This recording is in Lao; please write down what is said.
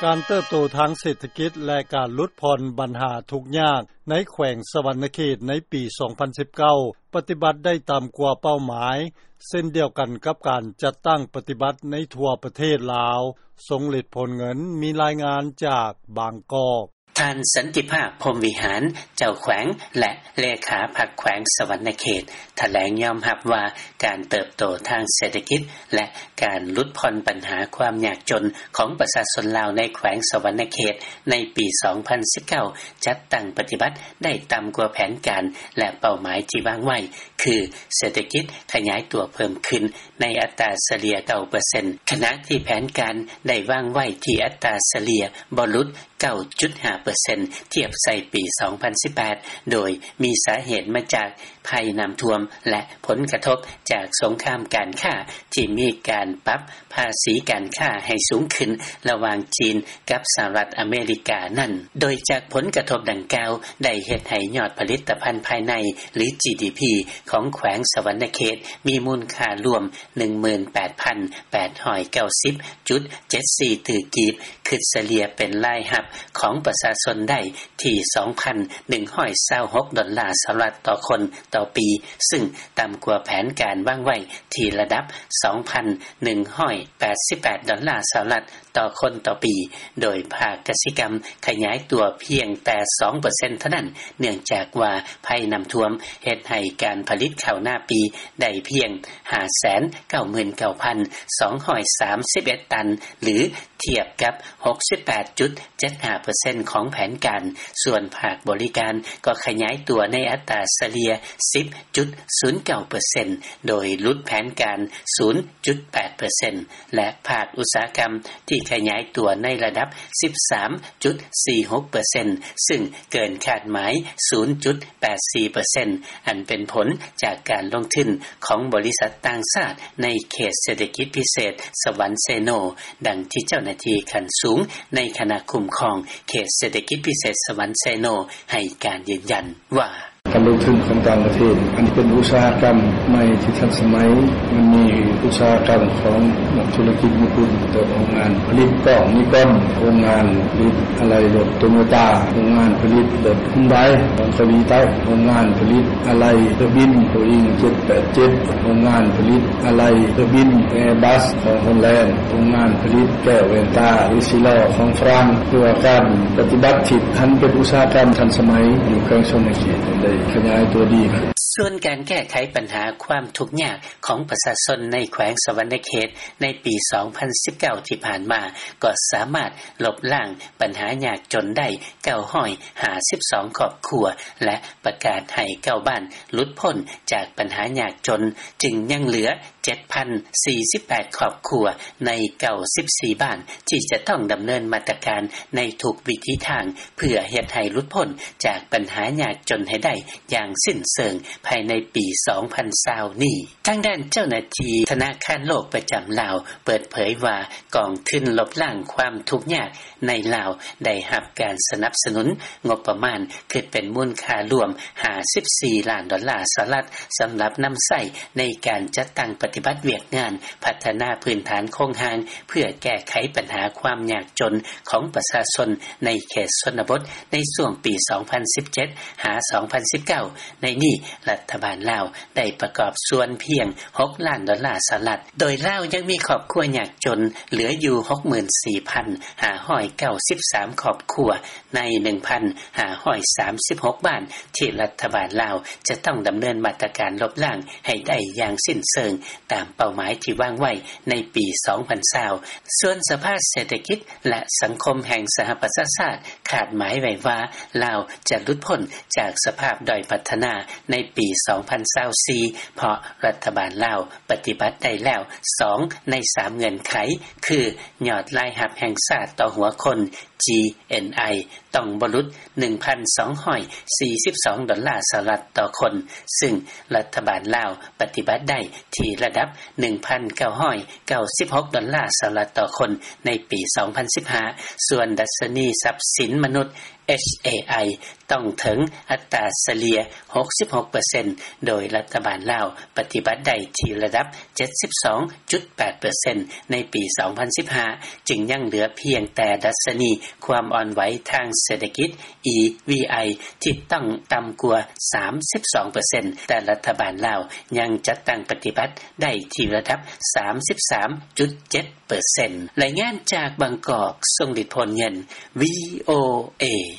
ການເຕີບໂຕທາງເສດຖະກິດ ແລະ ການຫຼຸດຜ່ອນບັນຫາທຸກຍາກໃນແຂວງສະຫວັນນະເຂດໃນປີສອງພັນສິບເກົ້າ ປະຕິບັດໄດ້ຕ່ຳກວ່າເປົ້າໝາຍ ເຊັ່ນດຽວກັນກັບການຈັດຕັ້ງປະຕິບັດໃນທົ່ວປະເທດລາວ ສົ່ງເລັດຜົນເງິນ. ມີລາຍງານຈາກບາງກອກ. ທ່ານ ສັນຕິພາບ ພົມວິຫານ ເຈົ້າແຂວງ ແລະ ເລຂາພັກແຂວງສະຫວັນນະເຂດ ຖະແຫຼງຍອມຮັບວ່າ ການເຕີບໂຕທາງເສດຖະກິດ ແລະ ການຫຼຸດຜ່ອນບັນຫາຄວາມຍາກຈົນຂອງປະຊາຊົນລາວໃນແຂວງສະຫວັນນະເຂດ ໃນປີສອງພັນສິບເກົ້າ ຈັດຕັ້ງປະຕິບັດໄດ້ຕ່ຳກວ່າແຜນການ ແລະ ເປົ້າໝາຍທີ່ວາງໄວ້ ຄືເສດຖະກິດຂະຫຍາຍຕົວເພີ່ມຂຶ້ນໃນອັດຕາສະເລ່ຍເກົ້າເປີເຊັນ ຂະນະທີ່ແຜນການໄດ້ວາງໄວ້ທີ່ອັດຕາສະເລ່ຍບໍ່ຫຼຸດ ເກົ້າຈຸດຫ້າເປີເຊັນ ທຽບໃສ່ປີສອງພັນສິບແປດ ໂດຍມີສາເຫດມາຈາກໄພນ້ຳຖ້ວມ ແລະ ຜົນກະທົບຈາກສົງຄາມການຄ້າ ທີ່ມີການປັບພາສີການຄ້າໃຫ້ສູງຂຶ້ນລະຫວ່າງຈີນກັບສະຫະລັດອາເມລິການັ້ນ. ໂດຍຈາກຜົນກະທົບດັ່ງກ່າວ ໄດ້ເຮັດໃຫ້ຍອດຜະລິດຕະພັນພາຍໃນ ຫຼື ຈີດີພີ ຂອງແຂວງສະຫວັນນະເຂດ ມີມູນຄ່າລວມ ໜຶ່ງໝື່ນແປດພັນແປດຮ້ອຍເກົ້າສິບຈຸດເຈັດສີ່ຕື້ກີບ ຄິດສະເລ່ຍເປັນລາຍຮັບຂອງປະຊາຊົນໄດ້ທີ່ສອງພັນໜຶ່ງຮ້ອຍຊາວຫົກດອນລາສະຫະລັດຕໍ່ຄົນຕໍ່ປີ ຊຶ່ງຕ່ຳກວ່າແຜນການວາງໄວ້ທີ່ລະດັບສອງພັນໜຶ່ງຮ້ອຍແປດສິບແປດດອນລາສະຫະລັດຕໍ່ຄົນຕໍ່ປີ ໂດຍພາກກະສິກຳຂະຫຍາຍຕົວພຽງແຕ່ສອງເປີເຊັນເທົ່ານັ້ນ ເນື່ອງຈາກວ່າໄພນ້ຳຖ້ວມເຮັດໃຫ້ການຜະລິດເຂົ້ານາປີໄດ້ພຽງຫ້າແສນເກົ້າໝື່ນເກົ້າພັນສອງຮ້ອຍສາມສິບເອັດຕັນ ຫຼື ທຽບກັບຫົກສິບແປດຈຸດເຈັດຫ້າເປີເຊັນຂອງແຜນການ, ສ່ວນພາກບໍລິການກໍຂະຫຍາຍຕົວໃນອັດຕາສະເລ່ຍສິບຈຸດສູນເກົ້າເປີເຊັນ ໂດຍຫຼຸດແຜນການສູນຈຸດແປດເປີເຊັນ ແລະ ພາກອຸດສາຫະກຳທີ່ຂະຫຍາຍຕົວໃນລະດັບສິບສາມຈຸດສີ່ຫົກເປີເຊັນ ຊຶ່ງເກີນຄາດໝາຍສູນຈຸດແປດສີ່ເປີເຊັນ ອັນເປັນຜົນຈາກການລົງທຶນຂອງບໍລິສັດຕ່າງຊາດໃນເຂດເສດຖະກິດພິເສດສະຫວັນເຊໂນ, ດັ່ງທີ່ເຈົ້າໜ້າທີ່ຂັ້ນສູງໃນຄະນະຄຸ້ມຄອງເຂດເສດຖະກິດພິເສດສະຫວັນເຊໂນໃຫ້ການຢືນຢັນວ່າ: ການລົງທຶນຂອງຕ່າງປະເທດ ອັນເປັນອຸດສາຫະກຳໃໝ່ທີ່ທັນສະໄໝ, ມັນມີອຸດສາຫະກຳຂອງນັກທຸລະກິດຍີ່ປຸ່ນ ເປັນຕົ້ນໂຮງງານຜະລິດກ້ອງນິກອນ, ໂຮງງານຜະລິດອາໄຫຼ່ລົດໂຕໂຍຕ້າ, ໂຮງງານຜະລິດລົດຮຸນໄດຂອງເກົາຫຼີໃຕ້, ໂຮງງານຜະລິດອາໄຫຼ່ເຮືອບິນໂບອິງເຈັດແປດເຈັດ, ໂຮງງານຜະລິດອາໄຫຼ່ເຮືອບິນແອບັສຂອງໂຮລແລນ, ໂຮງງານຜະລິດແກ້ວແວ່ນຕາເອຊີລໍຂອງຝຣັ່ງ. ເພື່ອການປະຕິບັດທີ່ທັນເປັນອຸດສາຫະກຳທັນສະໄໝຢູ່ແຂວງສະຫວັນນະເຂດໄດ້ຂະຫຍາຍຕົວດີຂຶ້ນ. ສ່ວນການແກ້ໄຂບັນຫາຄວາມທຸກຍາກຂອງປະຊາຊົນໃນແຂວງສະຫວັນນະເຂດໃນປີສອງພັນສິບເກົ້າທີ່ຜ່ານມາ ກໍສາມາດລົບລ້າງບັນຫາຍາກຈົນໄດ້ເກົ້າຮ້ອຍຫ້າສິບສອງຄອບຄົວ ແລະ ປະກາດໃຫ້ເກົ້າບ້ານຫຼຸດພົ້ນຈາກບັນຫາຍາກຈົນ, ຈຶ່ງຍັງເຫຼືອ ເຈັດພັນສີ່ສິບແປດຄອບຄົວໃນເກົ້າສິບສີ່ບ້ານ ທີ່ຈະຕ້ອງດຳເນີນມາດຕະການໃນທຸກວິທີທາງ ເພື່ອເຮັດໃຫ້ຫຼຸດພົ້ນຈາກບັນຫາຍາກຈົນໃຫ້ໄດ້ຢ່າງສິ້ນເຊີງພາຍໃນປີສອງພັນຊາວນີ້. ທາງດ້ານເຈົ້າໜ້າທີ່ທະນາຄານໂລກປະຈຳລາວເປີດເຜີຍວ່າ ກອງທຶນລົບລ້າງຄວາມທຸກຍາກໃນລາວ ໄດ້ຮັບການສະໜັບສະໜູນງົບປະມານ ຄິດເປັນມູນຄ່າລວມຫ້າສິບສີ່ລ້ານດອນລາສະຫະລັດ ສຳລັບນຳໃຊ້ໃນການຈັດຕັ້ງປະຕິບັດວຽກງານພັດທະນາພື້ນຖານໂຄງຮ່າງ ເພື່ອແກ້ໄຂບັນຫາຄວາມຍາກຈົນຂອງປະຊາຊົນໃນເຂດຊົນນະບົດ ໃນຊ່ວງປີສອງພັນສິບເຈັດ ຫາ ສອງພັນສິບເກົ້າ. ໃນນີ້ ລັດຖະບານລາວໄດ້ປະກອບສ່ວນພຽງຫົກລ້ານດອນລາສະຫະລັດ, ໂດຍລາວຍັງມີຄອບຄົວຍາກຈົນເຫຼືອຢູ່ຫົກໝື່ນສີ່ພັນຫ້າຮ້ອຍເກົ້າສິບສາມຄອບຄົວ ໃນໜຶ່ງພັນຫ້າຮ້ອຍສາມສິບຫົກບ້ານ ທີ່ລັດຖະບານລາວຈະຕ້ອງດຳເນີນມາດຕະການລົບລ້າງໃຫ້ໄດ້ຢ່າງສິ້ນເຊີງຕາມເປົ້າໝາຍທີ່ວາງໄວ້ໃນປີສອງພັນຊາວ. ສ່ວນສະພາເສດຖະກິດ ແລະ ສັງຄົມແຫ່ງສະຫະປະຊາຊາດຄາດໝາຍໄວ້ວ່າ ລາວຈະຫຼຸດພົ້ນຈາກສະພາບດ້ອຍພັດທະນາໃນປີສອງພັນຊາວສີ່ ເພາະລັດຖະບານລາວປະຕິບັດໄດ້ແລ້ວສອງໃນສາມເງື່ອນໄຂ ຄື ຍອດລາຍຮັບແຫ່ງຊາດຕໍ່ຫົວຄົນ ຈີເອັນໄອ ຕ້ອງບໍ່ຫຼຸດໜຶ່ງພັນສອງຮ້ອຍສີ່ສິບສອງດອນລາສະຫະລັດຕໍ່ຄົນ, ຊຶ່ງລັດຖະບານລາວປະຕິບັດໄດ້ທີ່ລະດັບໜຶ່ງພັນເກົ້າຮ້ອຍເກົ້າສິບຫົກດອນລາສະຫະລັດຕໍ່ຄົນໃນປີສອງພັນສິບຫ້າ. ສ່ວນດັດຊະນີຊັບສິນມະນຸດ ເອັດເອໄອ ຕ້ອງເຖິງອັດຕາສະເລ່ຍ ຫົກສິບຫົກເປີເຊັນ ໂດຍລັດຖະບານລາວປະຕິບັດໄດ້ທີ່ລະດັບ ເຈັດສິບສອງຈຸດແປດເປີເຊັນ ໃນປີ ສອງພັນສິບຫ້າ ຈຶ່ງຍັງເຫຼືອພຽງແຕ່ດັດຊະນີຄວາມອ່ອນໄຫວທາງເສດຖະກິດ EVI ທີ່ຕ້ອງຕ່ຳກວ່າ ສາມສິບສອງເປີເຊັນ ແຕ່ລັດຖະບານລາວຍັງຈັດຕັ້ງປະຕິບັດໄດ້ທີ່ລະດັບ ສາມສິບສາມຈຸດເຈັດເປີເຊັນ. ລາຍງານຈາກບາງກອກ ຊົງລິດ ໂພນເງິນ VOA.